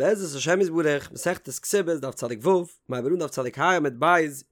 בעזרת השם יתברך, מסכת כתובות, דף צדיק ו', מ'הייבט אן דף צדיק ה' עמוד ב',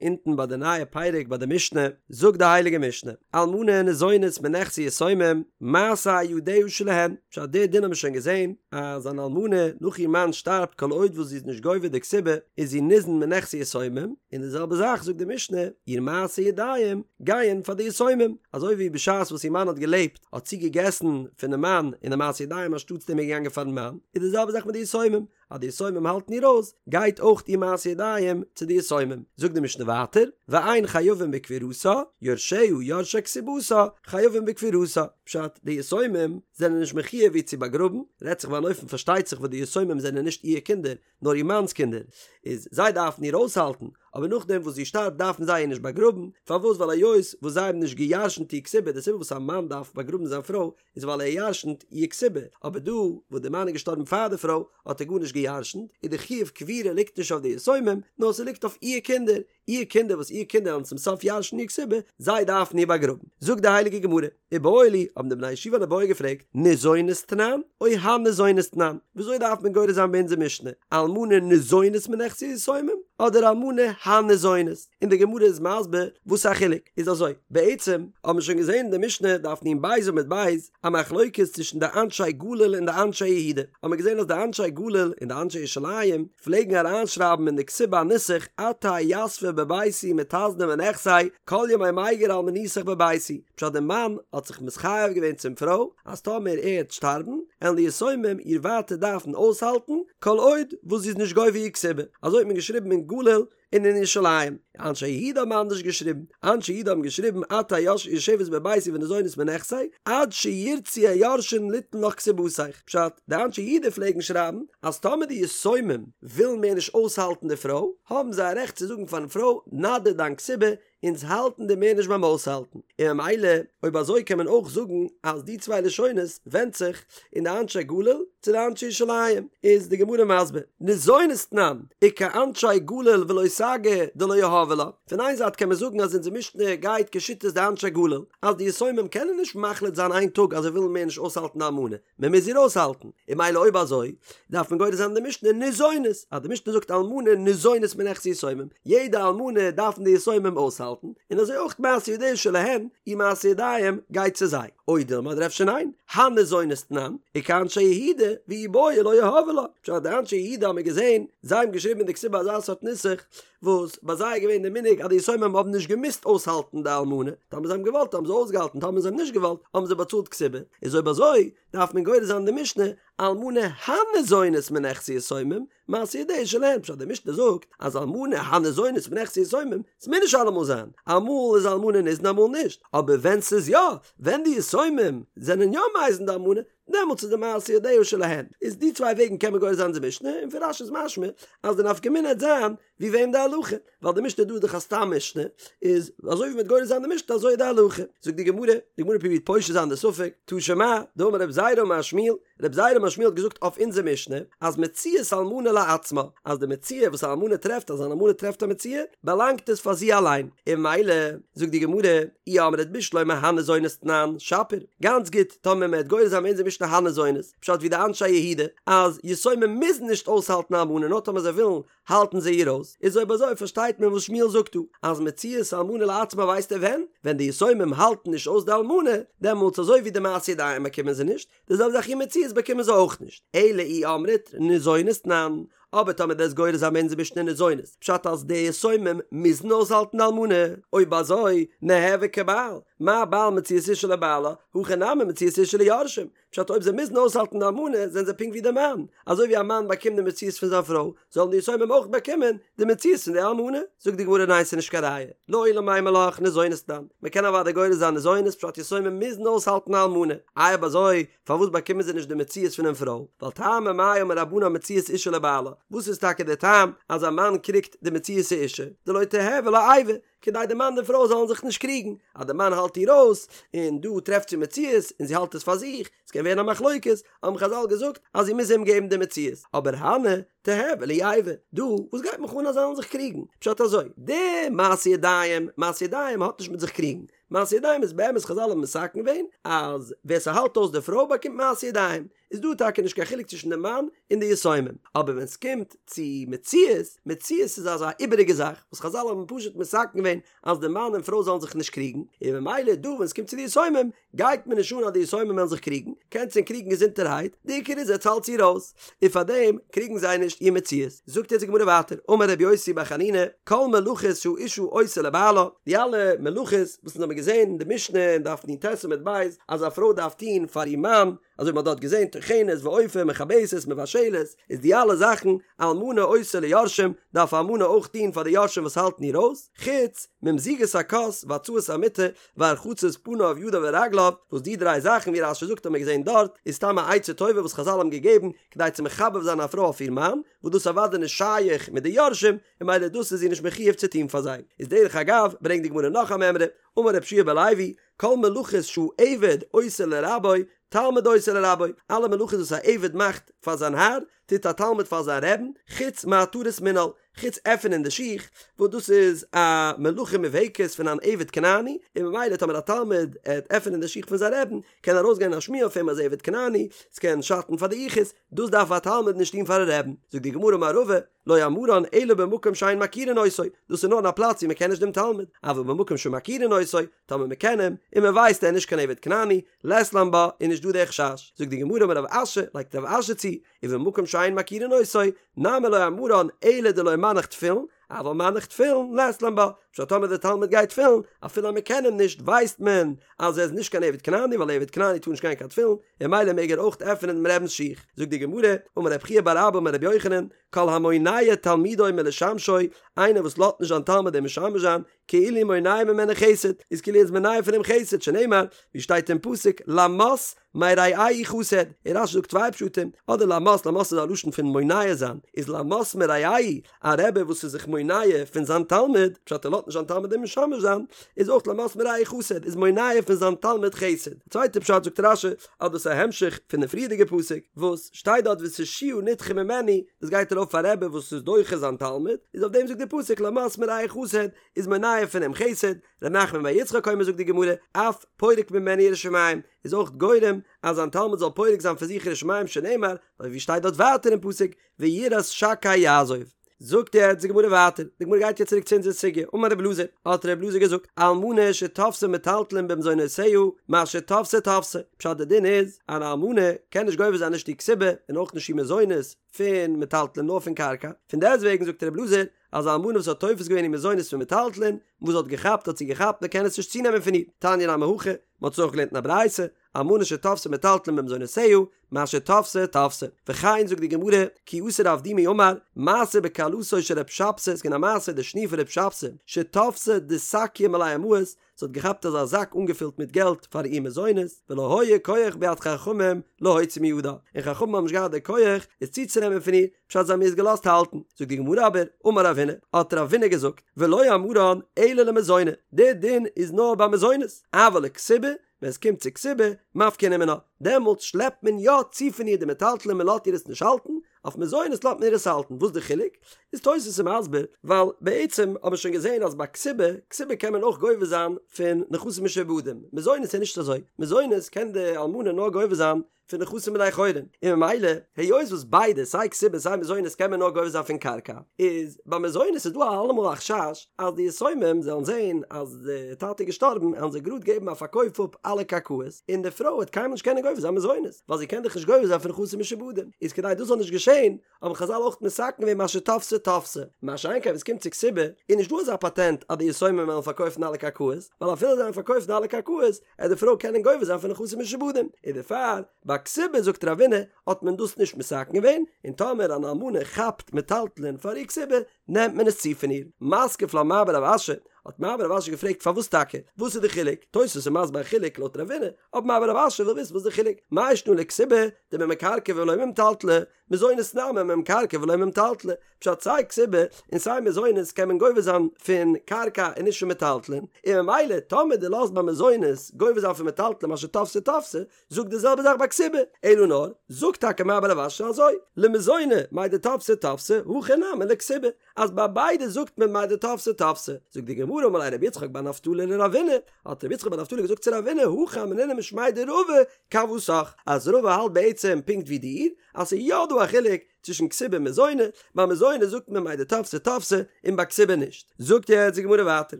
אונטן ביי די נייע פרק ביי די משנה, זאגט די הייליגע משנה, אלמנה ניזונית מנכסי יתומים, מעשה ידיה שלהן, פשט די דין האבן מיר שוין געזען, אז אן אלמנה נאך איר מאן שטארבט כל עוד וואס זי איז נישט גובה די כתובה, איז זי ניזון מנכסי יתומים, און די זעלבע זאך זאגט די משנה, איר מעשה ידיים גייען פאר די יתומים, אזוי ווי בשעת וואס איר מאן האט געלעבט, האט זי געגעסן פונעם מאן און די מעשה ידיים אנשטאטס דעם איז געגאנגען פארן מאן, איז די זעלבע זאך מיט די יתומים, אז די יתומים האלטן איר אויס, גייט אויך איר מעשה ידיים צו די יתומים. זאגט די משנה ווייטער, ואין חייבים בקבורתה, יורשיה יורשי כתובתה, חייבים בקבורתה, פשט, די יתומים זענען נישט מחויב איר צו באגראבן, רעדט זיך ביי אן אופן פארשטייט זיך וואס די יתומים זענען נישט איר קינדער, נאר איר מאנ'ס קינדער, איז זיי דארפן איר אויסהאלטן, אבער נאכדעם וואס זי שטארבט דארפן זיי איר נישט באגראבן, פארוואס ווייל היות וואס זיי האבן נישט גע'ירש'נט איר כתובה, די סיבה וואס א מאן דארף באגראבן זיין פרוי איז ווייל ער ירש'נט איר כתובה, אבער דא וואס די מאן איז געשטארבן פאר די פרוי האט ער גארנישט גע'ירש'נט, איז די חיוב קבורה ליגט נישט אויף די יתומים, נאר ס'ליגט אויף איר קינדער, איר קינדער וואס איר קינדער וועלן צום סוף ירש'ן איר כתובה, זיי דארפן איר באגראבן. זאגט די הייליגע גמרא, איבעיא להו, האבן די בני ישיבה אן איבעיא געפרעגט, ניזונית תנן, או הניזונית תנן, וויאזוי דארף מען גורס זיין ביי אונזער משנה, אלמנה ניזונית מנכסי יתומים, אדער אלמנה הניזונית? און די גמרא איז מסביר וואס א חילוק, איז אזוי, בעצם האבן מיר שוין געזען אין די משנה דף נ"ב עמוד ב', א מחלוקת צווישן די אנשי גליל און די אנשי יהודה, האבן מיר געזען אז די אנשי גליל און די אנשי ירושלים פלעגן אריינשרייבן אין די כתובה א נוסח את תהא יתבא בביתי מיתזנא מנכסי כל ימי מיגר אלמנותיך בביתי, פשט די מאן האט זיך מתחייב געווען צום פרוי אז טאמער ער העט שטארבן עלן די יתומים איר ווייטער דארפן אויסהאלטן כל עוד וואס זי איז נישט גובה איר כתובה, אזוי האט מען געשריבן אין גליל און אין ירושלים. אנשי יהודה האבן אנדערש געשריבן. אנשי יהודה האבן געשריבן את תהא יושבת בביתי וניזונית מנכסי, עד שירצו היורשין ליתן לך כתובתיך. פשט, די אנשי יהודה פלעגן שרייבן אז טאמער די יתומים ווילן מער נישט אויסהאלטן די פרוי, האבן זיי א רעכט צו זאגן פארן פרוי, נא דיר דיין כתובה, אונז האלטן דיר מער נישט ביים אויסהאלטן. און ממילא, אויב אזוי קען מען אויך זאגן אז די צוויי לשונות ווענדט זיך אין די אנשי גליל צו די אנשי ירושלים, איז די גמרא מסביר, ניזונית תנן, וכאנשי גליל ולא סגי דלא יהבי לה, פון איין זייט קען מען זאגן אז אונזער משנה גייט כשיטת די אנשי גליל, אז די יתומים קענען נישט מחליט זיין איין טאג אז זיי ווילן מער נישט אויסהאלטן די אלמנה, מען מוז איר אויסהאלטן, און ממילא אויב אזוי דארף מען גורס זיין די משנה ניזונית, אז די משנה זאגט אלמנה ניזונית מנכסי יתומים, יעדע אלמנה דארפן די יתומים אויסהאלטן, און אזוי אויך מעשה ידיה שלהן, איר מעשה ידיים גייט צו זיי. או דילמא אדער אפשר ניין, הניזונית תנן, וכאנשי יהודה, ואי בעו לא יהבי לה, פשט די אנשי יהודה האבן מיר געזען, זיי האבן געשריבן אין די כתובה אזא סארט נוסח, וואס ביי זיי איז געווען די מנהג אז די יתומים האבן נישט געמוזט אויסהאלטן די אלמנה, טאמער זיי האבן געוואלט האבן זיי אויסגעהאלטן טאמער זיי האבן נישט געוואלט האבן זיי באצאלט כתובה, איז אויב אזוי דארף מען גורס זיין די משנה אלמנה הניזונית מנכסי יתומים, מעשה ידיה שלהן, פשט די משנה זאגט אז אלמנה הניזונית מנכסי יתומים, ס'מוז נישט אלעמאל זיין, אמאל איז אלמנה ניזון אמאל נישט, אבער ווען ס'איז יא, ווען די יתומים זענען יא מזין די אלמנה, דעמאלטס איז די מעשה ידיה שלהן. איז די צוויי וועגן קען מען גורס זיין די משנה, און פון רש"י איז משמע אז די נפקא מינה העט זיין ווי וועם די הלכה, ווייל די משנה דא איז דאך א סתם משנה, איז אזוי ווי מ'העט גורס זיין די משנה אזוי איז די הלכה. זאגט די גמרא, די גמרא פרובירט פושט זיין די ספק, תא שמע, דאמר רב זירא אמר שמואל, רב זירא אמר שמואל האט געזאגט אויף אונזער משנה, אז מציאת אלמנה לעצמה, אז די מציאה וואס א אלמנה טרעפט אז אן אלמנה טרעפט א מציאה, באלאנגט עס פאר זי אליין, און ממילא, זאגט די גמרא, אי אמרת בשלמא הניזונית תנן, שפיר, גאנץ גוט, טאמער מ'העט גורס זיין אונזער משנה הניזונית, פשט ווי די אנשי יהודה, אז יתומים מוזן נישט אויסהאלטן א אלמנה נאר טאמער זיי ווילן האלטן זיי איר אויס, איז אויב אזוי פארשטייט מען וואס שמואל זאגט דא, אז מציאת אלמנה לעצמה ווייסט ער ווען, ווען די יתומים האלטן נישט אויס די אלמנה, דעמאלטס אזוי ווי די מעשה ידיים באקומען זיי נישט, די זעלבע זאך איר מציאות באקומען זיי אויך נישט, אלא אי אמרת ניזונית תנן, אבער טאמער דו'סט גורס זיין אונזער משנה ניזונית, פשט אז די יתומים מוזן אויסהאלטן די אלמנה, אויב אזוי, ניהוו כבעל, מה בעל מציאת אשה לבעלה, הכא נמי מציאת אשה ליורשים, פשט אויב זיי מוזן אויסהאלטן די אלמנה זענען זיי פונקט ווי די מאן, אזוי ווי א מאן באקומט די מציאות פון זיין פרוי, זאלן די יתומים אויך באקומען די מציאות פון די אלמנה. זאגט די גמרא ניין ס'איז נישט קיין ראיה, לעולם אימא לך ניזונית תנן, מ'קען אוודאי גורס זיין ניזונית פשט יתומים מוזן אויסהאלטן א אלמנה, איי אויב אזוי פארוואס באקומען זיי נישט די מציאות פונעם פרוי, ווייל טעמא מאי אמור רבנן מציאת אשה לבעלה, וואס איז טאקע די טעם אז א מאן קריגט די מציאות האשה, דלא תיהוי לה איבה, כדי די מאן די פרוי זאלן זיך נישט קריגן, אז די מאן האלט איר אויס, און דא טרעפט זי מציאות און זי האלט עס פאר זיך, עס קען ווערן א מחלוקת, האבן חז"ל געזאגט אז זי מוז אים געבן די מציאות, אבער הני תיהוי להו איבה, דא וואס גייט מיך אן אז זיי זאלן זיך קריגן, פשט אזוי, די מעשה ידיים, מעשה ידיים האט נישט מיט זיך קריגן, מעשה ידיים איז באמת חזל האבן מתקן געווען אז ווער ס'האלט אויס די פרוי באקומט מעשה ידיים, איז דא טאקע נישט קיין חילוק צווישן די מאן און די יתומים, אבער ווען ס'קומט צו מציאות, מציאות איז אזא איבעריגע זאך וואס חזל האבן פשוט מתקן געווען אז די מאן און פרוי זאלן זיך נישט קריגן, און ממילא דא ווען ס'קומט צו די יתומים גייט מיר נישט אן אז די יתומים וועלן זיך קריגן, קענטס ענק קריגן געזונטערהייט, די עיקר איז עטס האלטס איר אויס, און פארדעם קריגן זיי נישט איר מציאות. זאגט יעצט די גמרא ווייטער, אמר רבי יוסי בר חנינא, כל מלאכות שהאשה עושה לבעלה, די אלע מלאכות וואס אונז האבן געזען אין די משנה אין דף נ"ט עמוד ב' אז א פרוי דארף טון פאר איר מאן, אזוי ווי מ'האט דארט געזען טוחנת ואופה מכבסת מבשלת, איז די אלע זאכן אלמנה עושה ליורשים, דארף א אלמנה אויך טון פאר די יורשים וואס האלטן איר אויס, חוץ ממזיגת הכוס והצלת המיטה והרחצת פניו ידיו ורגליו, וואס די דריי זאכן ווי רש"י זאגט האט מען געזען דארט, איז סתם א עצה טובה וואס חזל האבן געגעבן כדי צו מחבב זיין א פרוי אויף איר מאן, וואס דאס איז אוודאי נישט שייך מיט די יורשים, און ממילא דאס איז זי נישט מחויב צו טון פאר זיי. איז דרך אגב ברענגט די גמרא נאך א מימרא, אמר רבי יהושע בן לוי, כל מלאכות שהעבד עושה לרבו, תלמיד עושה לרבו, אלע מלאכות וואס א עבד מאכט פאר זיין האר, טוט א תלמיד פאר זיין רעבן, חוץ מהתרת מנעל, חוץ עפענען די שיך, וואס דאס איז א מלאכה מובהקת פון אן עבד כנעני, און ממילא טאמער א תלמיד עט עפענען די שיך פון זיין רעבן, קען ארויסגיין א שמועה אויף אים אז עבד כנעני, ס'קען שאטן פאר די יחוס, דאס דארף א תלמיד נישט טון פארן רעבן. זאגט די גמרא אמר רבא, לא אמרן אלא במקום שאין מכירין אותו, דאס איז נאר אין א פלאץ ווי מ'קען נישט דעם תלמיד, אבל במקום שמכירין אותו, טאמער מ'קען אים, און מ'ווייסט ער איז נישט קיין עבד כנעני, לית לן בה, איז נישט דא דער חשש. זאגט די גמרא אמר רב אשי, לייגט רב אשי צו, ובמקום שאין מכירין אותו, נמי לא אמרן אלא דלא מנח תפילין, אבל מנח תפילין לית לן בה, פשט טאמער דער תלמיד גייט תפילין, אפילו אז מען קען אים נישט ווייסט מען אז ער איז נישט קיין עבד כנעני ווייל עבד כנעני טאר נישט גיין קיין תפילין, און ממילא מעג ער אויך עפענען דעם רבינ'ס שיך. זאגט די גמרא, אמר רב חייא בר אבא אמר רבי יוחנן, כל המונע תלמידו מלשמשו, איינער וואס לאזט נישט זיין תלמיד אים משמש זיין, כאילו מונע ממנו חסד, איז כאילו ער איז מונע פון אים חסד, שנאמר, ווי שטייט אין פסוק, למס מרעהו חסד, און רש"י זאגט צוויי פשטים, אדער למס, למס איז א לשון פון מונע זיין, איז למס מרעהו, א רבי וואס איז זיך מונע פון זיין תלמיד, פשט ער לאזט נישט זיין תלמיד אים משמש זיין, איז אויך למס מרעהו חסד, איז מונע פון זיין תלמיד חסד. א צווייטע פשט זאגט רש"י, אז דאס איז א המשך פון די פריערדיגע פסוק, וואס שטייט דארט ותושיה נדחה ממנו, דאס גייט ארויף אויף א רבי וואס איז דוחה זיין תלמיד, איז אויף דעם זאגט די פסוק למס מרעהו חסד, איז מונע פון אים חסד, ר' נחמן בר יצחק אומר זאגט די גמרא, אף פורק ממנו יראת שמים, איז אויך גורם אז זיין תלמיד זאל פורק זיין פון זיך יראת שמים שנאמר, אזוי ווי שטייט דארט ווייטער אין פסוק, ויראת שקי יעזוב. זאגט יעצט די גמרא ווייטער, די גמרא גייט יעצט צוריק צו אונזער סוגיא, אמר רבי אלעזר, האט רבי אלעזר געזאגט, אלמנה שתפסה מטלטלין במזונותיה, מה שתפסה תפסה, פשט די דין איז, אן אלמנה קען נישט גובה זיין נישט איר כתובה און אויך נישט איר מזונות פון מטלטלין נאר פון קרקע, פון דעסטוועגן זאגט רבי אלעזר, אז א אלמנה וואס האט תופס געווען איר מזונות פון מטלטלין, וואס זי האט געכאפט האט זי געכאפט מען קען עס נישט צונעמען פון איר, תניא נמי הכי, מען האט עס אויך געלערנט אין א ברייתא, אלמנה שתפסה מטלטלין במזונותיה, מה שתפסה תפסה. וכן זאגט די גמרא, כי אתא רב דימי אמר, מעשה בכלתו של רב שבתי, ס'איז געווען א מעשה די שניר פון רב שבתי, שתפסה דסקיא מלא מעות, זי האט געכאפט אזא זאק אנגעפילט מיט געלט פאר איר מזונות, ולא היה כח ביד חכמים להוציא מידה, און חכמים האבן נישט געהאט די כח עס צוצונעמען פון איר, פשט זיי האבן איר עס געלאזט האלטן. זאגט די גמרא אבער, אמר רב הונא, האט רב הונא געזאגט, ולא אמרן אלא למזוני, די דין איז נאר ביי מזונות, אבל לכתובה, ווען עס קומט צו כתובה, מפקינן מינה, דעמאלטס שלעפט מען יא צו פון איר די מטלטלין מען לאזט איר עס נישט האלטן, אויף מזונות לאזט מען איר עס האלטן, וואס די חילוק? איז תוס' איז מסביר, ווייל בעצם האט מען שוין געזען אז ביי כתובה, כתובה קען מען אויך גובה זיין פון נכסים משועבדים, מזונות איז נישט אזוי, מזונות קען די אלמנה נאר גובה זיין פון נכסים בני חורין, און ממילא היות וואס ביידע סיי כתובה סיי מזונות קען מען נאר גובה זיין פון קרקע, איז ביי מזונות איז דא אלעמאל א חשש אז די יתומים זאלן זען אז די טאטע איז געשטארבן וועלן זיי גראד געבן א פארקויף אפ אלע קרקעות, און די פרוי וועט קיינמאל נישט קענען גובה זיין מזונות, ווייל זי קען דאך נישט גובה זיין פון נכסים משועבדים, איז כדי דאס זאל נישט געשען האבן חזל אויך מתקן געווען מה שתפסה תפסה, מה שאין כן ווען עס קומט צו כתובה, איז נישט דא אזא פאטענט אז די יתומים וועלן פארקויפן אלע קרקעות, ווייל אפילו זיי וועלן פארקויפן אלע קרקעות, עט די פרוי קענען גובה זיין פון נכסים משועבדים, און דערפאר ביי כתובה זאגט רב הונא האט מען דאס נישט מתקן געווען, און טאמער אן אלמנה כאפט מטלטלין פאר איר כתובה, נעמט מען עס צו פון איר. מתקיף לה מר בר רב אשי, האט מר בר רב אשי געפרעגט פארוואס טאקע? וואס איז די חילוק? תוספות איז מסביר א חילוק לויט רב הונא, אבער מר בר רב אשי וויל וויסן וואס איז די חילוק, מאי שנא לכתובה דממקרקעי ולא ממטלטלי, מזונות נמי ממקרקעי ולא ממטלטלי, פשט סיי כתובה און סיי מזונות קען מען גובה זיין פון קרקע און נישט פון מטלטלין, און ממילא טאמער דו לאזט ביי מזונות גובה זיין פון מטלטלין מה שתפסה תפסה, זאג די זעלבע זאך ביי כתובה, אלא נאר, זאגט טאקע מר בר רב אשי אזוי, למזוני מאי דתפסה תפסה, הכא נמי לכתובה. אז ביי ביידע זאגט מען מהו דתפסי תפסי. זאגט די גמרא אמר ליה רבי יצחק בר נפתלי לרבינא, האט רבי יצחק בר נפתלי געזאגט צו רבינא הכי אמרינא משמיה דרבא כוותך, אז רבא האלט בעצם פונקט ווי דיר, אז ס'איז יא דא א חילוק צווישן כתובה און מזוני, ביי מזוני זאגט מען מהו דתפסי תפסי און ביי כתובה נישט. זאגט יעצט די גמרא ווייטער,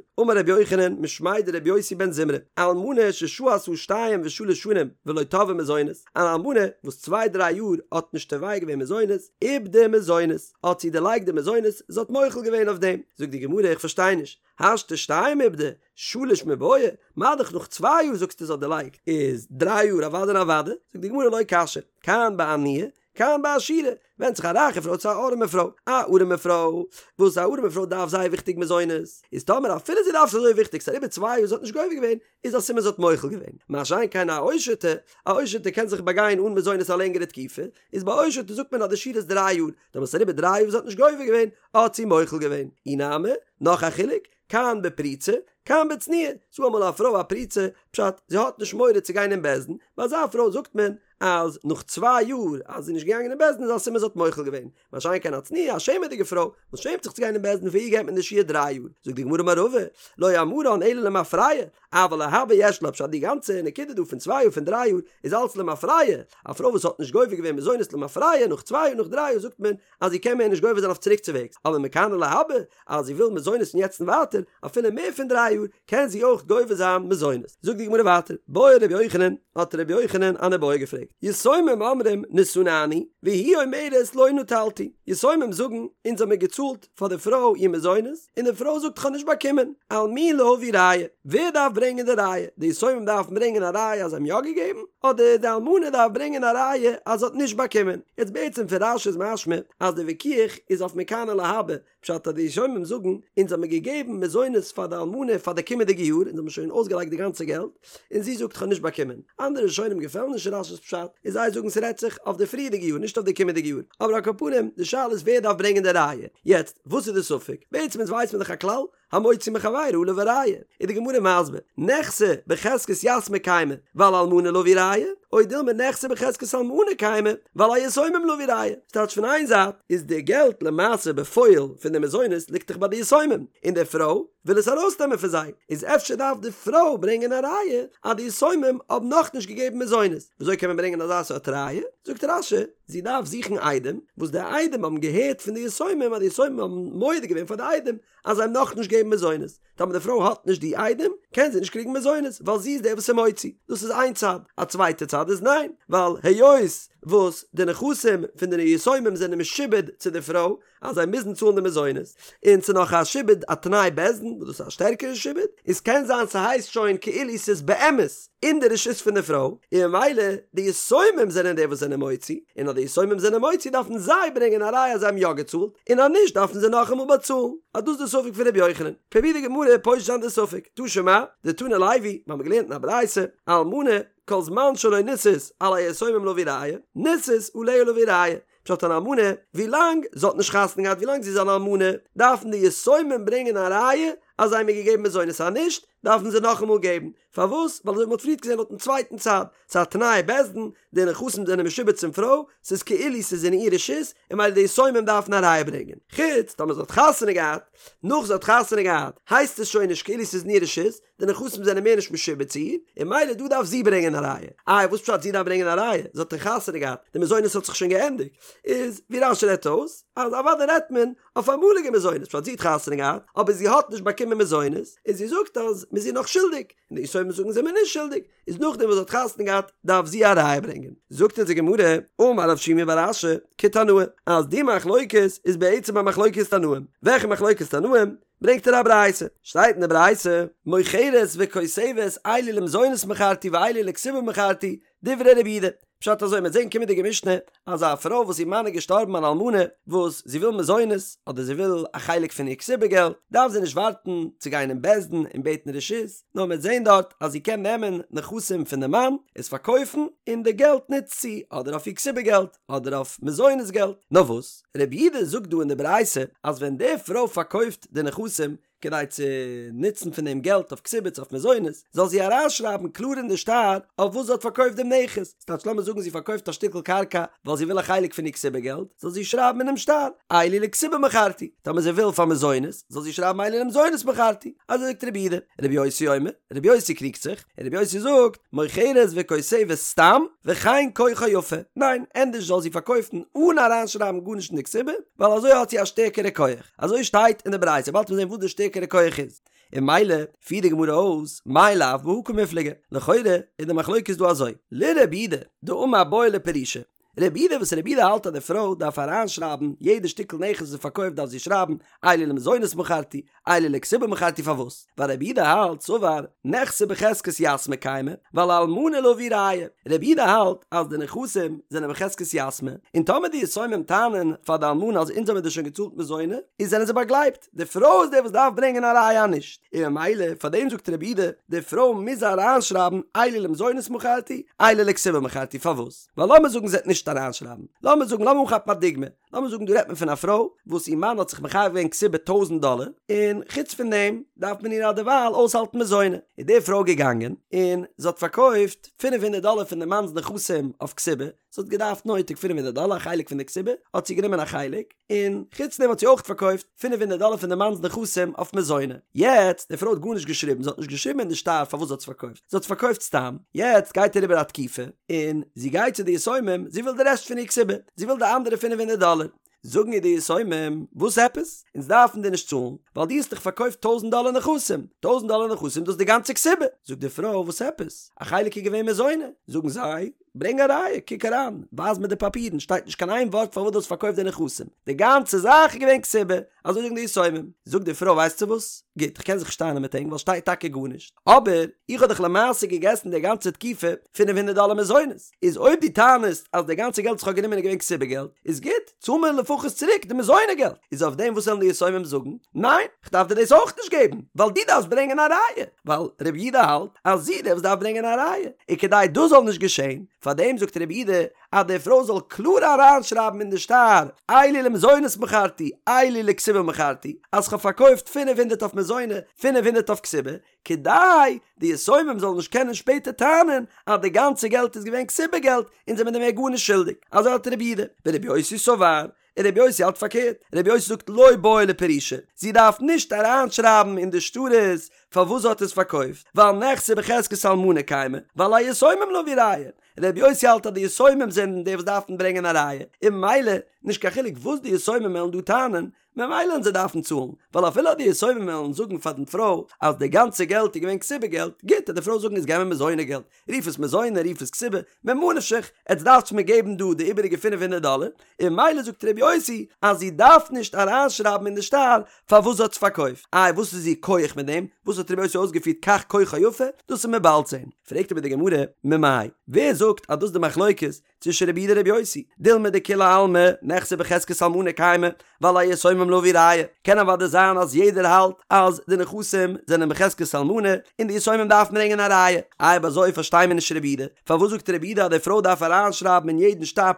אמר רבי יוחנן משמיה דרבי יוסי בן זמרא, אלמנה ששהתה שתיים ושלש שנים ולא תבעה מזונות, אן אלמנה וואס צוויי דריי יאר האט נישט תובע געווען מזונות, איבדה מזונות, האט זי דערלייגט די מזונות, זי האט מוחל געווען אויף דעם. זאגט די גמרא איך פארשטיי נישט, השתא שתיים איבדה, שלש מיבעיא, מה דאך נאך צוויי יאר זאגסטו זי האט דערלייגט, איז דריי יאר אוודאי און אוודאי, זאגט די גמרא לא קשיא, כאן בעניה, כאן בעשירה, ווענדט זיך א רייכע פרוי צו א ארעמע פרוי, א ארעמע פרוי, וואס א ארעמע פרוי דארף זייער וויכטיג מזונות, איז טאמער אפילו זי דארף עס אזוי וויכטיג ס'איז אריבער צוויי יאר זי האט נישט גובה געווען, איז א סימן זי האט מוחל געווען, מה שאין כן א עושר'טע, א עושר'טע קען זיך באגיין אן מזונות א לענגערע תקופה, איז ביי עושר'טע זאגט מען אז די שיעור איז דריי יאר, טאמער ס'איז אריבער דריי יאר זי האט נישט גובה געווען, האט זי מוחל געווען. אי נמי, נאך א חילוק, כאן בפרוצה, כאן בצנועה, ס'דא אמאל א פרוי א פרוצה, פשט, זי האט נישט מורא צו גיין אין בית דין, ביי אזא פרוי זאגט מען אז נאך צוויי יאר אז זי איז נישט געגאנגען אין בית דין איז א סימן זי האט מוחל געווען, מה שאין כן א צנועה, א שעמעדיגע פרוי, וואס שעמט זיך צו גיין אין בית דין פאר איר געבט מען די שיעור דריי יאר, זאגט די גמרא אמר רבא, לא אמרן אלא למפרע, אבל להבא יש לה, פשט די גאנצע נקודה דא פון צוויי יאר פון דריי יאר איז אלץ למפרע, א פרוי וואס האט נישט גובה געווען מזונות למפרע נאך צוויי יאר נאך דריי יאר זאגט מען אז זי קען מער נישט גובה זיין אויף צוריקצווועגס, אבער מכאן ולהבא אז זי וויל מזונות פון יעצט און ווייטער, אפילו מער פון דריי יאר, קען זי אויך גובה זיין מזונות. זאגט די גמרא ווייטער, בעי רבי יוחנן, האט רבי יוחנן אן איבעיא געפרעגט, יתומים אומרים נתננו, והיא אומרת לא נטלתי, יתומים זאגן, אונז האמיר געצאלט פאר די פרוי איר מזונות, און די פרוי זאגט כ'האב נישט באקומען, על מי להביא ראיה, ווער דארף ברענגען די ראיה, די יתומים דארפן ברענגען א ראיה אז זיי האבן יא געגעבן, אדער די אלמנה דארף ברענגען א ראיה אז זי האט נישט באקומען. יעצט בעצם פון רש"י איז משמע אז די וויכוח איז אויף מכאן ולהבא, פשט אז די יתומים זאגן, אונז האמיר געגעבן מזונות פאר די אלמנה פאר די קומענדיגע יאר, אונז האמיר שוין אויסגעלייגט די גאנצע געלט, און זי זאגט כ'האב נישט באקומען. אנדערע ראשונים געפעלן נישט רש"י'ס פשט, און זיי זאגן ס'רעדט זיך אויף די פריערדיגע יאר נישט אויף די קומענדיגע יאר. אבער על כל פנים, די שאלה איז ווער דארף ברענגען די ראיה. יעצט, וואס איז די ספק? בעצם אונז ווייסט מען דאך א כלל, המוציא מחבירו עליו הראיה, איז די גמרא מסביר, נכסי בחזקת יתמי קיימי, ועל אלמנה להביא ראיה, או דילמא נכסי בחזקת אלמנה קיימי, ועל היתומים להביא ראיה. ס'טייטש פון איין זייט איז די געלט למעשה בפועל פון די מזונות ליגט דאך ביי די יתומים, און די פרוי וויל עס ארויסנעמען פון זיי, איז אפשר דארף די פרוי ברענגען א ראיה אז די יתומים האבן נאכנישט געגעבן מזונות. וויאזוי קען מען ברענגען אזא סארט ראיה? זאגט רש"י, זי דארף זוכן עדים, וואס די עדים האבן געהערט פון די יתומים אז די יתומים האבן מודה געווען פאר די עדים אז זיי האבן נאכנישט געגעבן מזונות, טאמער די פרוי האט נישט די עדים, קען זי נישט קריגן מזונות, ווייל זי איז דער וואס איז מוציא. דאס איז איין צד. א צווייטע צד איז ניין, ווייל היות וואס די נכסים פון די יתומים זענען משועבד צו די פרוי, אז זיי מוזן צאלן די מזונות, און ס'איז נאך א שעבוד א תנאי בית דין, וואס דאס איז א שטערקערע שעבוד, איז קען זיין ס'הייסט שוין כאילו ס'איז באמת אין די רשות פון די פרוי, און ממילא די יתומים זענען די וואס זענען מוציא, און אז די יתומים זענען מוציא דארפן זיי ברענגען א ראיה אז זיי האבן יא געצאלט, און אז נישט דארפן זיי נאכאמאל באצאלן. אז דאס איז די ספק פון ר' יוחנן. פרובירט די גמרא פושט זיין די ספק. תא שמע, דתני לוי, מיר האבן געלערנט אין א ברייתא, אלמנה, כל זמן שלא נישאת, על היתומים להביא ראיה, נישאת, עליה להביא ראיה. פשט אן אלמנה, ווילאנג זי האט נישט חתונה געהאט ווילאנג זי איז אן אלמנה, דארפן די יתומים ברענגען א ראיה אז זיי האבן איר געגעבן מזונות אז נישט, דארפן זיי נאכאמאל געבן. פארוואס? ווייל אזוי ווי מ'האט פריערט געזען לויטן צווייטן צד, ס'איז א תנאי בית דין, די נכסים זענען משועבד צום פרוי, ס'איז כאילו ס'איז אין איר רשות, און ממילא די יתומים דארפן א ראיה ברענגען. חוץ טאמער זי האט חתונה געהאט, נאך זי האט חתונה געהאט, הייסט עס שוין נישט כאילו ס'איז אין איר רשות, די נכסים זענען מער נישט משועבד צו איר, און ממילא דא דארף זי ברענגען א ראיה. איי וואס פשט זי דארף ברענגען א ראיה? זי האט דאך חתונה געהאט, די מזונות האט זיך שוין געענדיגט. איז ווי רש"י רעדט אויס, אז אוודאי רעדט מען אויף אמאליגע מזונות, פשט זי האט חתונה געהאט, אבער זי האט נישט באקומען מזונות, און זי זאגט אז מ'איז איר נאך שולדיג, און די יתומים זאגן זעמיר נישט שולדיג, איז נאכדעם וואס זי האט חתונה געהאט דארף זי א ראיה ברענגען. זאגט אונז די גמרא, אמר רב שימי בר אשי, כתנאי, אז די מחלוקת איז בעצם א מחלוקת תנאים. וועלכע מחלוקת תנאים? ברענגט ער א ברייתא, שטייט אין די ברייתא, מוכרת וכותבת אלו למזונות מכרתי ואלו לכתובה מכרתי, דברי רבי יהודה, פשט אזוי מ'וועט זען קומענדיגע משנה אז א פרוי וואס איר מאן איז געשטארבן אן אלמנה וואס זי וויל מזונות אדער זי וויל א חלק פון איר כתובה געלט דארף זי נישט ווארטן צו גיין אין בית דין און בעטן רשות נאר מ'וועט זען דארט אז זי קען נעמען נכסים פון די מאן עס פארקויפן און די געלט נוצט זי אדער אויף איר כתובה געלט אדער אויף מזונות געלט נאר וואס רבי יהודה זאגט דא אין די ברייתא אז ווען די פרוי פארקויפט די נכסים. כדי צו נוצן פון דעם געלט אויף כתובה צו אויף מזונות, זאל זי אריינשרייבן קלאר אין די שטר אויף וואס זי האט פארקויפט דעם נכס, ס'טייטש לאמיר זאגן זי פארקויפט א שטיקל קרקע ווייל זי וויל א חלק פון איר כתובה געלט, זאל זי שרייבן אינעם שטר, אלו לכתובה מכרתי, טאמער זי וויל פאר מזונות, זאל זי שרייבן אלו למזונות מכרתי, אזוי זאגט רבי יהודה, רבי יוסי אומר, רבי יוסי קריגט זיך, און רבי יוסי זאגט, מוכרת וכותבת סתם, וכן כוחה יפה, ניין, ענדערש זאל זי פארקויפן אן אריינשרייבן גארנישט אין די כתובה, ווייל אזוי האט זי א שטערקערע כח, אזוי שטייט אין די ברייתא, באלד וועט מען זען וואס די שטערקערע כח איז. און ממילא פירט די גמרא אויס, מאי לאו בהא קמיפלגי, לכאורה איז די מחלוקת דא אזוי, לרבי יהודה דאמר בעי לפרושי, רבי יהודה וואס רבי יהודה האלט אז די פרוי דארף אריינשרייבן יעדע שטיקל נכס וואס זי פארקויפט דארף זי שרייבן אלו למזונות מכרתי אלו לכתובה מכרתי פארוואס ווייל רבי יהודה האלט סבר נכסי בחזקת יתמי קיימי ועל אלמנה להביא ראיה רבי יהודה האלט אז די נכסים זענען בחזקת יתמי און טאמער די יתומים טענה'ן פאר די אלמנה אז אונז האבן דיר שוין געצאלט מזונות איז זענען זיי באגלייבט די פרוי איז די וואס דארף ברענגען א ראיה נישט, און ממילא פאר דעם זאגט רבי יהודה, די פרוי מוז אריינשרייבן אלו למזונות מכרתי, אלו לכתובה מכרתי, פארוואס? ווייל לאמיר זאגן זי וועט נישט אריינשרייבן, לאמיר זאגן, לאמיר אנכאפן א דוגמא, לאמיר זאגן דא רעדט מען פון א פרוי וואס איר מאן האט זיך מחייב געווען כתובה טויזנט דאלער, און חוץ פון דעם דארף מען איר אדערווייל אויסהאלטן מזונות, איז די פרוי געגאנגען און זי האט פארקויפט פינף הונדערט דאלער פון די מאנ'ס נכסים אויף כתובה, זי האט געדארפט נויטיג פינף הונדערט דאלער א חלק פון די כתובה, האט זי גענומען א חלק, און חוץ דעם האט זי אויך פארקויפט פינף הונדערט דאלער פון די מאנ'ס נכסים אויף מזונות. יעצט, די פרוי האט גארנישט געשריבן, זי האט נישט געשריבן אין די שטר פארוואס זי האט עס פארקויפט, זי האט עס פארקויפט סתם, יעצט גייט אריבער א תקופה, און זי גייט צו די יתומים, זי וויל די רעשט פון איר כתובה, זי וויל די אנדערע פינף הונדערט דאלער. זאגן איר די יתומים, וואס עפעס? אונז דארפן דיר נישט צאלן, ווייל דו האסט דאך פארקויפט טויזנט דאלער נכסים, טויזנט דאלער נכסים דאס איז די גאנצע כתובה. זאגט די פרוי, וואס עפעס? א חלק איז געווען מזונות. זאגן זיי, ברענג א ראיה, קוק אריין, ווייז מיר די פאפירן, שטייט נישט קיין איין ווארט פארוואס דו האסט פארקויפט די נכסים, די גאנצע זאך איז געווען כתובה, אזוי זאגן די יתומים. זאגט די פרוי ווייסטו וואס, גוט, איך קען זיך נישט טענה'ן מיט ענק ווייל שטייט טאקע גארנישט, אבער איך האב דאך למעשה געגעסן די גאנצע תקופה פינף הונדערט דאלער מזונות, איז אויב דו טענה'סט אז די גאנצע געלט וואס איך האב גענומען איז געווען כתובה געלט, איז גוט, צאל מיר לפחות צוריק די מזונות געלט. איז אויף דעם וואס וועלן די יתומים זאגן? ניין, כ'דארף דיר דאס אויך נישט געבן, ווייל דו דארפסט ברענגען א ראיה, ווייל רבי יהודה האלט אז זי איז די וואס דארף ברענגען א ראיה, און כדי דאס זאל נישט געשען, פאר דעם זאגט רבי יהודה אז די פרוי זאל קלאר אריינשרייבן אין די שטר, אלו למזונות מכרתי, אלו לכתובה מכרתי, אז כ'האב פארקויפט פינף הונדערט אויף מזונות, פינף הונדערט אויף כתובה, כדי די יתומים זאלן נישט קענען שפעטער טענה'ן אז די גאנצע געלט איז געווען כתובה געלט און זענען מיר מער גארנישט שולדיג. אזוי האלט רבי יהודה. ורבי יוסי סבר, און רבי יוסי האלט פארקערט, רבי יוסי זאגט לא בעי לפרושי, זי דארף נישט אריינשרייבן אין די שטרות פארוואס זי האט עס פארקויפט, ווייל נכסי בחזקת אלמנה קיימי, ועל היתומים להביא ראיה. רבי יוסי האלט אז די יתומים זענען די וואס דארפן ברענגען א ראיה, און ממילא נישט קיין חילוק וואס די יתומים וועלן דא טענה'ן, ממילא וועלן זיי דארפן צאלן, ווייל אפילו אז די יתומים וועלן זאגן פאר דעם פרוי אז די גאנצע געלט איז געווען כתובה געלט, גוט, וועט די פרוי זאגן איז געב מיר מזונות געלט, רוף עס מזונות רוף עס כתובה, ממה נפשך, עטס דארפטס מיר געבן דא די איבעריגע פינף הונדערט דאלער, און ממילא זאגט ר' יוסי אז זי דארף נישט אריינשרייבן אין די שטר פארוואס זי האט עס פארקויפט, איי וואס איז איר כח מיט דעם, וואס האט ר' יוסי אויסגעפירט כך כוחה יפה, דאס וועט מען באלד זען. פרעגט אבער די גמרא, ממאי, ווער זאגט אז דאס איז די מחלוקת צווישן רבי יהודה און רבי יוסי, דילמא דכולי עלמא נכסי בחזקת אלמנה קיימי, ועל היתומים להביא ראיה, קען אוודאי זיין אז יעדער האלט אז די נכסים זענען בחזקת אלמנה און די יתומים דארפן ברענגען א ראיה, אויב אזוי פארשטיי מיר נישט רבי יהודה, פארוואס זאגט רבי יהודה אז די פרוי דארף אריינשרייבן אין יעדן שטר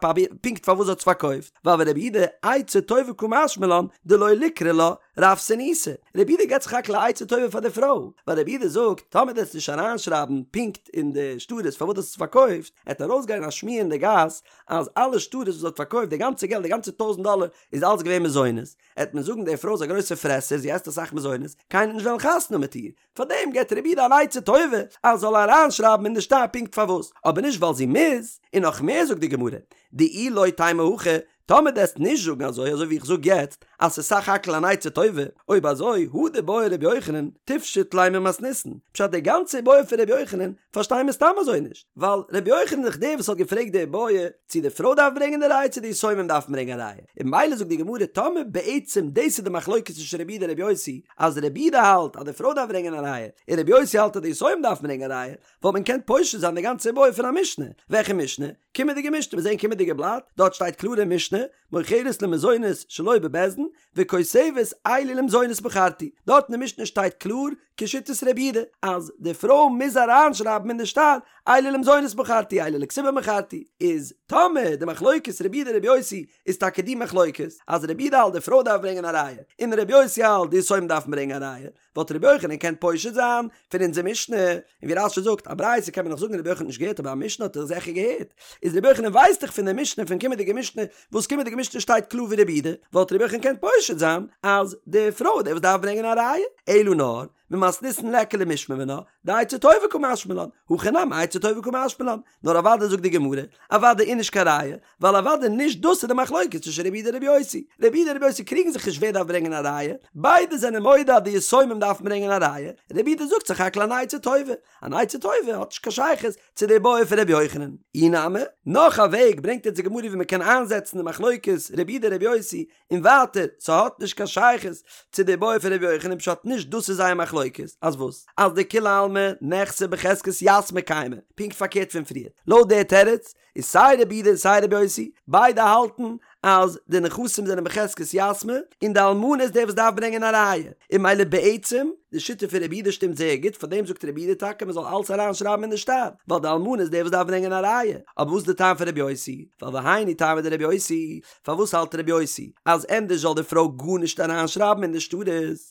פונקט פארוואס זי האט עס פארקויפט, ווייל ורבי יהודה עצה טובה קא משמע לן דלא ליקרי לה רעבתנותא, רבי יהודה געבט סך הכל א עצה טובה פאר די פרוי, ווייל רבי יהודה זאגט, טאמער דו וועסט נישט אריינשרייבן פונקט אין די שטרות פארוואס דו האסט עס פארקויפט, עט ארויסגיין א שמועה אין די גאס אז אלע שטרות וואס זי האט פארקויפט, די גאנצע געלט, די גאנצע טויזנט דאלער, איז אלץ געווען מזונות, עט מען זאגן די פרוי איז א גרויסע פרעסער, זי עסט אסאך מזונות, קיינער וועט נישט וועלן חתונה מיט איר, פארדעם געבט רבי יהודה אן עצה טובה אז זאל אריינשרייבן אין די שטר פונקט פארוואס, אבער נישט ווייל זי מוז, און נאך מער זאגט די גמרא, דאי לא תימא הכי, טאמער דו עסט נישט זאגן אזוי אזוי ווי איך זאג יעצט אז ס'איז סך הכל אן עצה טובה, אויב אזוי הא דבעי רבי יוחנן תפשוט ליה ממתניתין, פשט די גאנצע איבעיא פון רבי יוחנן פארשטיי מיר סתם אזוי נישט, ווייל רבי יוחנן איז דאך דער וואס האט געפרעגט די איבעיא צו די פרוי דארף ברענגען די ראיה צו די יתומים דארפן ברענגען א ראיה, און ממילא זאגט די גמרא טאמער בעצם דאס איז די מחלוקת צווישן רבי יהודה און רבי יוסי אז רבי יהודה האלט אז די פרוי דארף ברענגען א ראיה און רבי יוסי האלט אז די יתומים דארפן ברענגען א ראיה, וואלט מען געקענט פושט זיין די גאנצע איבעיא פון א משנה, וועלכע משנה? קומענדיגע משנה, מיר זעען קומענדיגע בלאט, דארט שטייט קלאר אין משנה, מוכרת למזונות שלא בבית דין, וכותבת אלו למזונות מכרתי, דארט אין די משנה שטייט קלאר כשיטת רבי יהודה אז די פרוי מוז אריינשרייבן אין די שטר אלו למזונות מכרתי אלו לכתובה מכרתי, איז טאמער די מחלוקת רבי יהודה רבי יוסי איז טאקע די מחלוקת אז רבי יהודה האלט די פרוי דארף ברענגען א ראיה און רבי יוסי האלט די יתומים דארפן ברענגען א ראיה, וואלט רבי יוחנן געקענט פושט זיין פון אונזער משנה, און ווי רש"י זאגט, א ברייתא קען מען נאך זאגן רבי יוחנן האט נישט געהערט אבער א משנה האט ער זיכער געהערט, איז רבי יוחנן ווייסט דאך פון די משנה פון קומענדיגע משנה, וואס קומענדיגע משנה שטייט קלאר ווי רבי יהודה, וואלט רבי יוחנן געקענט פושט זיין אז די פרוי איז די וואס דארף ברענגען א ראיה, אלא נאר, ממתניתין ליכא למשמע מינה, דעצה טובה קא משמע לן, הכא נמי עצה טובה קא משמע לן, נאר אוודאי זאגט די גמרא, אוודאי איז נישט קיין ראיה, ווייל אוודאי נישט דאס איז די מחלוקת צווישן רבי יהודה און רבי יוסי, רבי יהודה און רבי יוסי קריגן זיך נישט ווער דארף ברענגען א ראיה, ביידע זענען מודה אז די יתומים דארפן ברענגען א ראיה, רבי יהודה זאגט סך הכל אן עצה טובה, אן עצה טובה האט נישט קיין שייכות צו די בעיא פון רבי יוחנן. אי נמי, נאך א וועג ברענגט אונז די גמרא ווי מען קען איינזעצן די מחלוקת רבי יהודה רבי יוסי, און ווייטער, ס'האט נישט קיין שייכות צו די בעיא פון רבי יוחנן פשט נישט דאס איז זייער מחלוקת, אז וואס? אז דכולי עלמא נכסי בחזקת יתמי קיימי, פונקט פארקערט פון פריער, לויט די תירוץ איז סיי רבי יהודה און סיי רבי יוסי ביידע האלטן אז די נכסים זענען בחזקת יתמי און די אלמנה איז די וואס דארף ברענגען א ראיה, און ממילא בעצם די שיטה פון רבי יהודה שטימט זייער גוט פארדעם זאגט רבי יהודה טאקע מען זאל אלס אריין שרייבן אין די שטר ווייל די אלמנה איז די וואס דארף ברענגען א ראיה, אבער וואס איז די טעם פון רבי יוסי? ווייל והיינו טעמא דרבי יוסי, פארוואס האלט רבי יוסי אז ענדערש זאל די פרוי גארנישט אריינשרייבן אין די שטרות?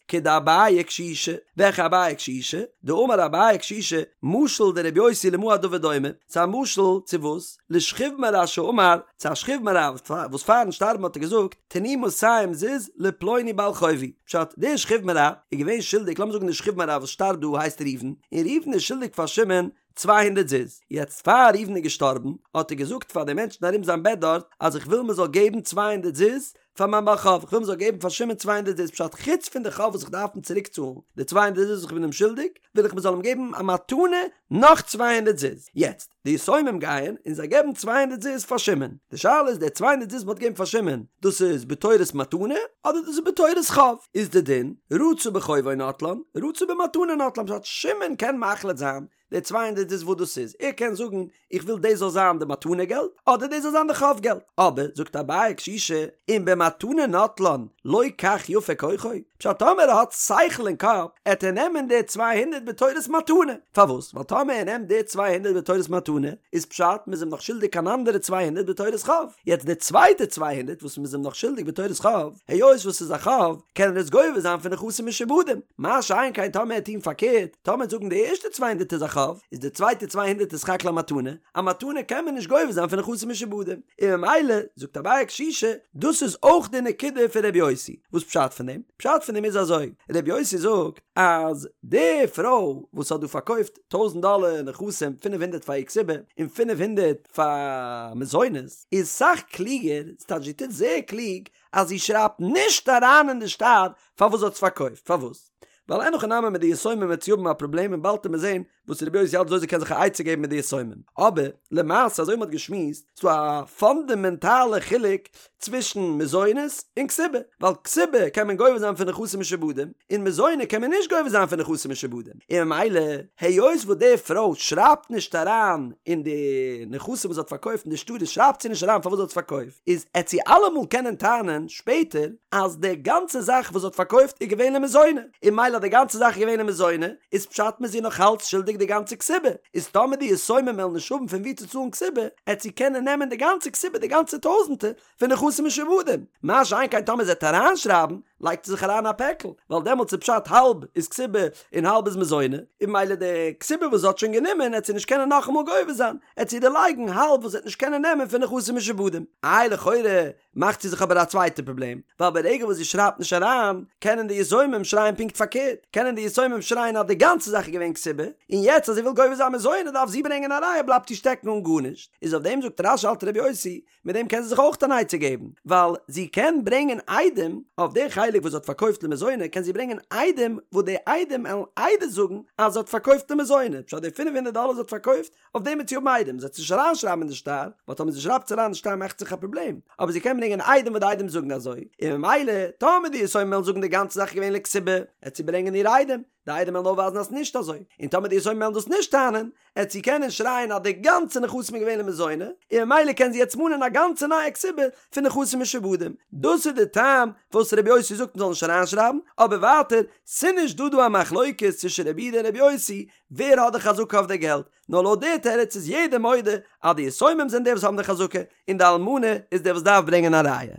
כדאביי קשישא, וועלכע אביי קשישא? דאמר אביי קשישא, משל דרבי יוסי למה הדבר דומה, ס'איז א משל צו וואס? לשכיב מרע שאמר, צו א שכיב מרע וואס פארן שטארבן האט ער געזאגט, תנו מאתים זוז לפלוני בעל חובי, פשט, דער שכיב מרע איז געווען שולדיג, לאמיר זאגן דער שכיב מרע וואס שטארבט דא הייסט ראובן, און ראובן איז שולדיג פאר שמעון צוויי הונדערט זוז. יעצט פאר ראובן איז געשטארבן האט ער געזאגט פאר די מענטשן ארום זיין בעט דארט אז איך וויל מען זאל געבן צוויי הונדערט זוז פאר מיין בעל חוב, איך וויל מען זאל געבן פאר שמעון צוויי הונדערט זוז פשט חוץ פון די חוב וואס איך דארף אים צוריק צאלן די צוויי הונדערט זוז וואס איך בין אים שולדיג וויל איך מען זאל אים געבן א מתנה נאך צוויי הונדערט זוז. יעצט די יתומים גייען און זיי געבן צוויי הונדערט זוז פאר שמעון, די שאלה איז די צוויי הונדערט זוז מען האט געגעבן פאר שמעון דאס איז בתורת מתנה אדער דאס איז בתורת חוב, איז די דין רצה בחובו נוטלן רצה במתנה נוטלן פשט שמעון קען מחליט זיין די צוויי הונדערט זוז וואס דאס איז, ער קען זאגן איך וויל דאס זאל זיין די מתנה געלט, אדער דאס זאל זיין די חוב געלט, אבער זאגט אביי קשישא, אם במתנה נוטלן לא כך יפה כוחו, פשט טאמער ער האט שכל אין קאפ, עט ער נעמען די צוויי הונדערט בתורת מתנה, פארוואס? ווייל טאמער ער נעמט די צוויי הונדערט בתורת מתנה, איז פשט מ'איז אים נאך שולדיג אן אנדערע צוויי הונדערט בתורת חוב, יעצט די צווייטע צוויי הונדערט וואס מ'איז אים נאך שולדיג בתורת חוב, היות וואס ס'איז א חוב, קען ער עס גובה זיין פון נכסים משועבדים, מה שאין כן טאמער ער טוהן פארקערט, טאמער זאגן די ערשטע צוויי הונדערט איז א חוב, איז די צווייטע צוויי הונדערט איז סך הכל א מתנה, א מתנה קען מען נישט גובה זיין פון נכסים משועבדים, און ממילא, זאגט אביי קשישא, דאס איז אויך די נקודה פון ר' יוסי, וואס פשט פון דעם? פשט פון דעם איז אזוי, ר' יוסי זאגט אז די פרוי וואס האט דא פארקויפט טויזנט דאלער נכסים פינף הונדערט פאר איר כתובה און פינף הונדערט פאר מזונות, איז סאך קלוגער, ס'טייטש זי טוט זייער קלוג אז זי שרייבט נישט אריין אין די שטר פארוואס זי האט עס פארקויפט, פארוואס? ווייל אין הכי נמי מיט די יתומים וועט זי האבן א פראבלעם און באלד וועט מען זען וואס רבי יוסי האלט וויאזוי זי קען זיך א עצה געבן מיט די יתומים. אבער למעשה אזוי ווי מ'האט געשמועסט איז דא א פאנדעמענטאלע חילוק צווישן מזונות און כתובה, ווייל כתובה קען מען גובה זיין פון נכסים משועבדים און מזונות קען מען נישט גובה זיין פון נכסים משועבדים, און ממילא היות וואס די פרוי שרייבט נישט אריין אין די נכסים וואס זי האט פארקויפט אין די שטרות שרייבט זי נישט אריין פארוואס זי האט עס פארקויפט, איז עט זי אלעמאל קענען טענה'ן שפעטער אז די גאנצע זאך וואס זי האט פארקויפט איז געווען למזוני, און ממילא אז די גאנצע זאך איז געווען למזוני, איז פשט מ'איז איר נאך אלץ שולדיג די גאנצע כתובה, איז טאמער די יתומים וועלן נישט האבן פון וואו צו צאלן כתובה, עט זי קענען נעמען די גאנצע כתובה די גאנצע טויזענטער פון נכסים משועבדים, מה שאין כן טאמער זי עט אריינשרייבן, לייגט זי זיך אריין א פעקל, ווייל דעמאלטס איז פשט האלב איז כתובה און האלב איז מזוני, און ממילא די כתובה וואס זי האט שוין גענומען עט זי נישט קענען נאכאמאל גובה זיין, עט זי דערלייגן האלב וואס זי עט נישט קענען נעמען פון נכסים משועבדים. איי לכאורה מאכט זי זיך אבער א צווייטע פראבלעם, ווייל ברגע וואס זי שרייבט נישט אריין, קענען די יתומים שרייען פונקט פארקערט, קענען די יתומים שרייען אז די גאנצע זאך איז געווען כתובה, און יעצט אז זי וויל גובה זיין מזוני דארף זי ברענגען א ראיה בלייבט זי שטעקן אן גארנישט, איז אויף דעם זאגט רש"י האלט רבי יוסי, מיט דעם קען זי זיך אויך אן עצה געבן, ווייל זי קען ברענגען עדים, אויף די חלק וואס זי האט פארקויפט למזוני קען זי ברענגען עדים וואס די עדים עלן עדות זאגן אז זי האט פארקויפט למזוני, פשט די פינף הונדערט דאלער זי האט פארקויפט אויף דעם וועט זי האבן עדים, זי וועט עס נישט אריינשרייבן אין די שטר, ווייל טאמער זי שרייבט עס אריין אין די שטר מאכט זיך א פראבלעם, אבער זי קען ברענגען עדים וואס די עדים זאגן אזוי, און ממילא טאמער די יתומים וועלן זאגן די גאנצע זאך איז געווען לכתובה, עט זי ברענגען איר עדים. די עדים וועלן אויפווייזן אז ס'נישט אזוי, און טאמער די יתומים וועלן דאס נישט טענה'ן, עט זי קענען שרייען אז די גאנצע נכסים איז געווען למזוני, און ממילא קען זי יעצט מאנען א גאנצע נייע כתובה פון נכסים משועבדים. דאס איז די טעם וואס רבי יוסי זאגט מ'זאל נישט אריינשרייבן, אבער ווייטער, ס'נישט דא דא א מחלוקת צווישן רבי יהודה און רבי יוסי ווער האט די חזקה אויף די געלט, נאר לויט די תירוץ איז יעדער מודה אז די יתומים זענען די וואס האבן די חזקה, און די אלמנה איז די וואס דארף ברענגען א ראיה.